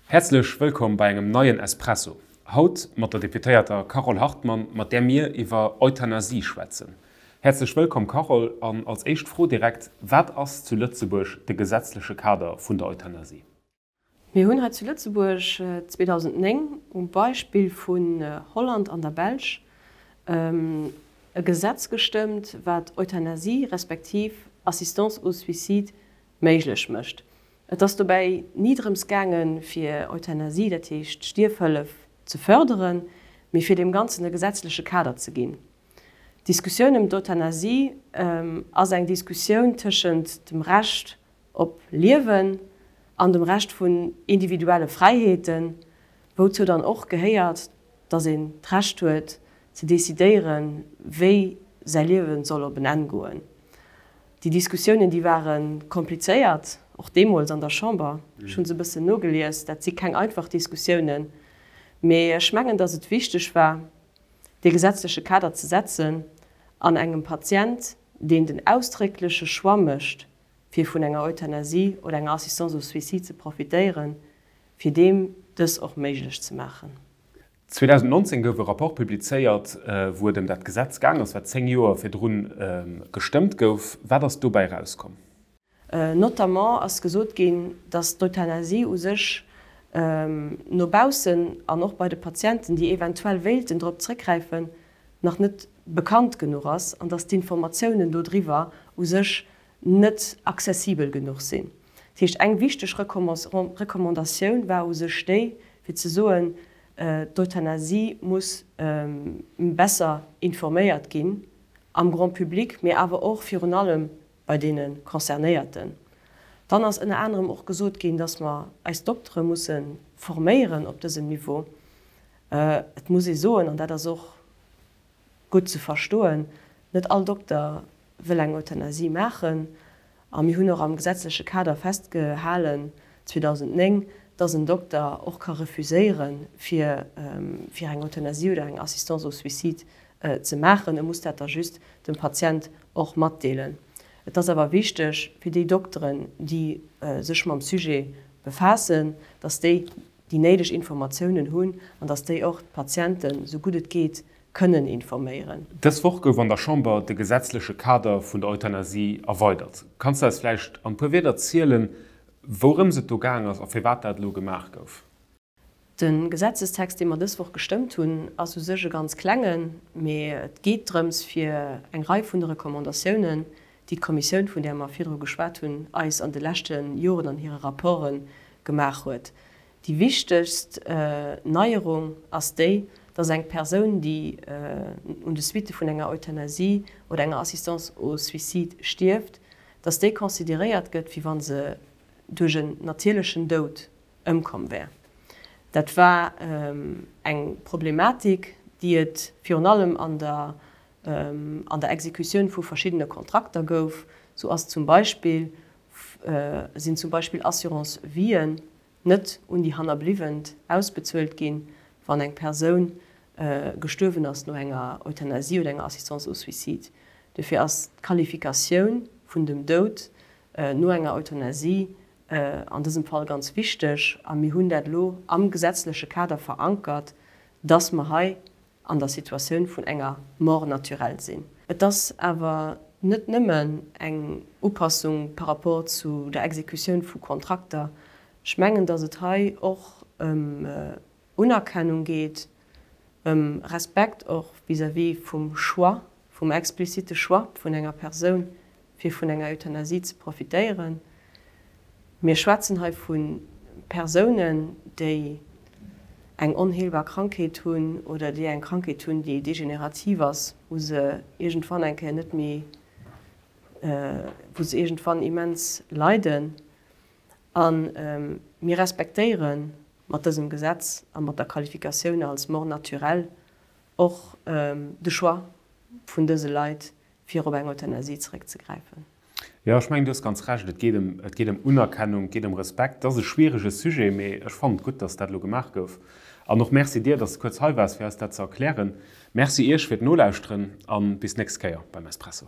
Häerzlech wëllkomm bei engem neien Espresso. Haut mat der Deputéierter Carole Hartmann, mat där mir iwwer Euthanasie schwätzen. Häerzlech wëllkomm Carole, an als éischt Fro direkt, Wat ass zu Lëtzebuerg de gesetzleche Kader vun der Euthanasie? Mir hunn hei zu Lëtzebuerg 2009 um Beispill vun Holland an der Belsch e Gesetz gestëmmt, wat Euthanasie respektiv Assistance au suicide méiglech mécht. Et ass dobäi ni drëms gaangen, fir Euthanasie, dat heescht Stierfhëllef, ze fërderen, mee fir deem Ganzen e gesetzleche Kader ze ginn. D'Diskussioun ëm d'Euthanasie ass eng Diskussioun tëschent dem Recht op Liewen an dem Recht vun individuelle Fräiheeten, wouzou dann och gehéiert, dass een d'Recht huet ze decidéieren, wéi säi Liewe soll op en Enn goen. Déi Diskussiounen, déi ware komplizéiert, och deemools an der Chamber. Ech hu se e bëssen nogelies. Dat si keng einfach Diskussiounen. Mee ech mengen, dass et wichteg war, dee gesetzleche Kader ze setzen an engem Patient, deen den ausdréckleche Choix mécht, fir vun enger Euthanasie oder enger Assistance au suicide ze profitéieren, fir deem dës och méiglech ze maachen. 2019 gouf e Rapport publizéiert, wou et ëm dat Gesetz gaang ass, wat 10 Joer virdrun gestëmmt gouf. Wat ass dobäi erauskomm? Notamment ass gesot ginn, datt d'Euthanasie u sech no baussen an och bei de Patienten, déi eventuell wéilten drop zréckgräifen, nach net bekannt genuch ass an datt d'Informatiounen dodriwwer u sech net accessibel genuch sinn. Dat heescht, eng wichteg Recommandatioun war u sech déi, fir ze soen, d'Euthanasie muss besser informéiert ginn am Grand public, mee awer och virun allem bei deene Concernéierten. Dann ass ënner anerem och gesot ginn, dass mer eis Doktere musse forméieren op dësem Niveau. Et muss ee soen, an dat ass och gutt ze verstoen, net all Dokter wëll eng Euthanasie maachen. A mir hunn och am gesetzleche Kader festgehalen 2009, dass en Dokter och ka refuséieren, fir fir eng Euthanasie oder eng Assistance au suicide ze maachen. E muss dat da just dem Patient och matdeelen. Et ass awer wichteg fir déi Dokteren, déi sech mam Sujet befaassen, dass déi déi néideg Informatiounen hunn an dass déi och d'Patienten, esou gutt et geet, kënnen informéieren. Dës Woch gouf an der Chamber de gesetzleche Kader vun der Euthanasie erweidert. Kanns de eis vläicht an e puer Wierder zielen, wourëms et do gaang ass a firwat dat elo gemaach gouf? De Gesetzestext, dee mer dës Woch gestëmmt hunn, ass u sech e ganz klengen, mee et geet drëms, fir eng Rei vun de Recommandatiounen, déi d'Kommissioun, vun där mer virdru geschwat hunn, eis an de leschte Joren an hire Rapporte gemaach huet. Déi wichtegst Neierung ass déi, dass eng Persoun, déi un de Suitte vun enger Euthanasie oder enger Assistance au suicide stierft, dass déi consideréiert gëtt, wéi wa se duerch en natierlechen Doud ëmkomm wär. Dat war eng Problematik, déi et virun allem an der an der Exekutioun vu verschiddene Kontrakter gouf. Sou ass zum Beispill, sinn zum Beispill Assurance-Vien net un déi Hannerbliwwent ausbezuelt ginn, wann eng Persoun gestuerwen ass no enger Euthanasie oder enger Assistance au suicide. Dofir ass d'Qualifikatioun vun dem Doud no enger Euthanasie an dësem Fall ganz wichteg a mir hunn dat elo am gesetzleche Kader verankert, dass mer hei an der Situatioun vun enger Mort naturelle sinn. Et ass awer net nëmmen eng Upassung par rapport zu der Exekutioun vu Kontrakter. Ech mengen, datt et hei och ëm Unerkennung geet, ëm Respekt och vis-à-vis vum Choix, vum explizite Choix vun enger Persoun, fir vun enger Euthanasie ze profitéieren. Mir schwätzen hei vu Persounen, déi eng onheelbar Krankheet hunn oder déi eng Krankheet hunn, déi degenerativ ass, wou se iergendwann eng Kéier net méi, wou se iergendwann immens leiden. A mir respektéiere mat dësem Gesetz a mat der Qualifikatioun als Mort naturelle och de Choix vun dëse Leit, fir op eng Euthanasie zeréckzegräifen. Jo, ech mengen, du hues ganz Recht. Et geet ëm, et geet ëm Unerkennung, et geet ëm Respekt. Et ass e schwierege Sujet, mee ech fannen et gutt, dass dat elo gemaach gouf. An och Merci dir, dass de kuerz hei waars, fir eis dat ze erklären. Merci Iech fir d'Nolauschteren a bis d'nächst Kéier beim Espresso.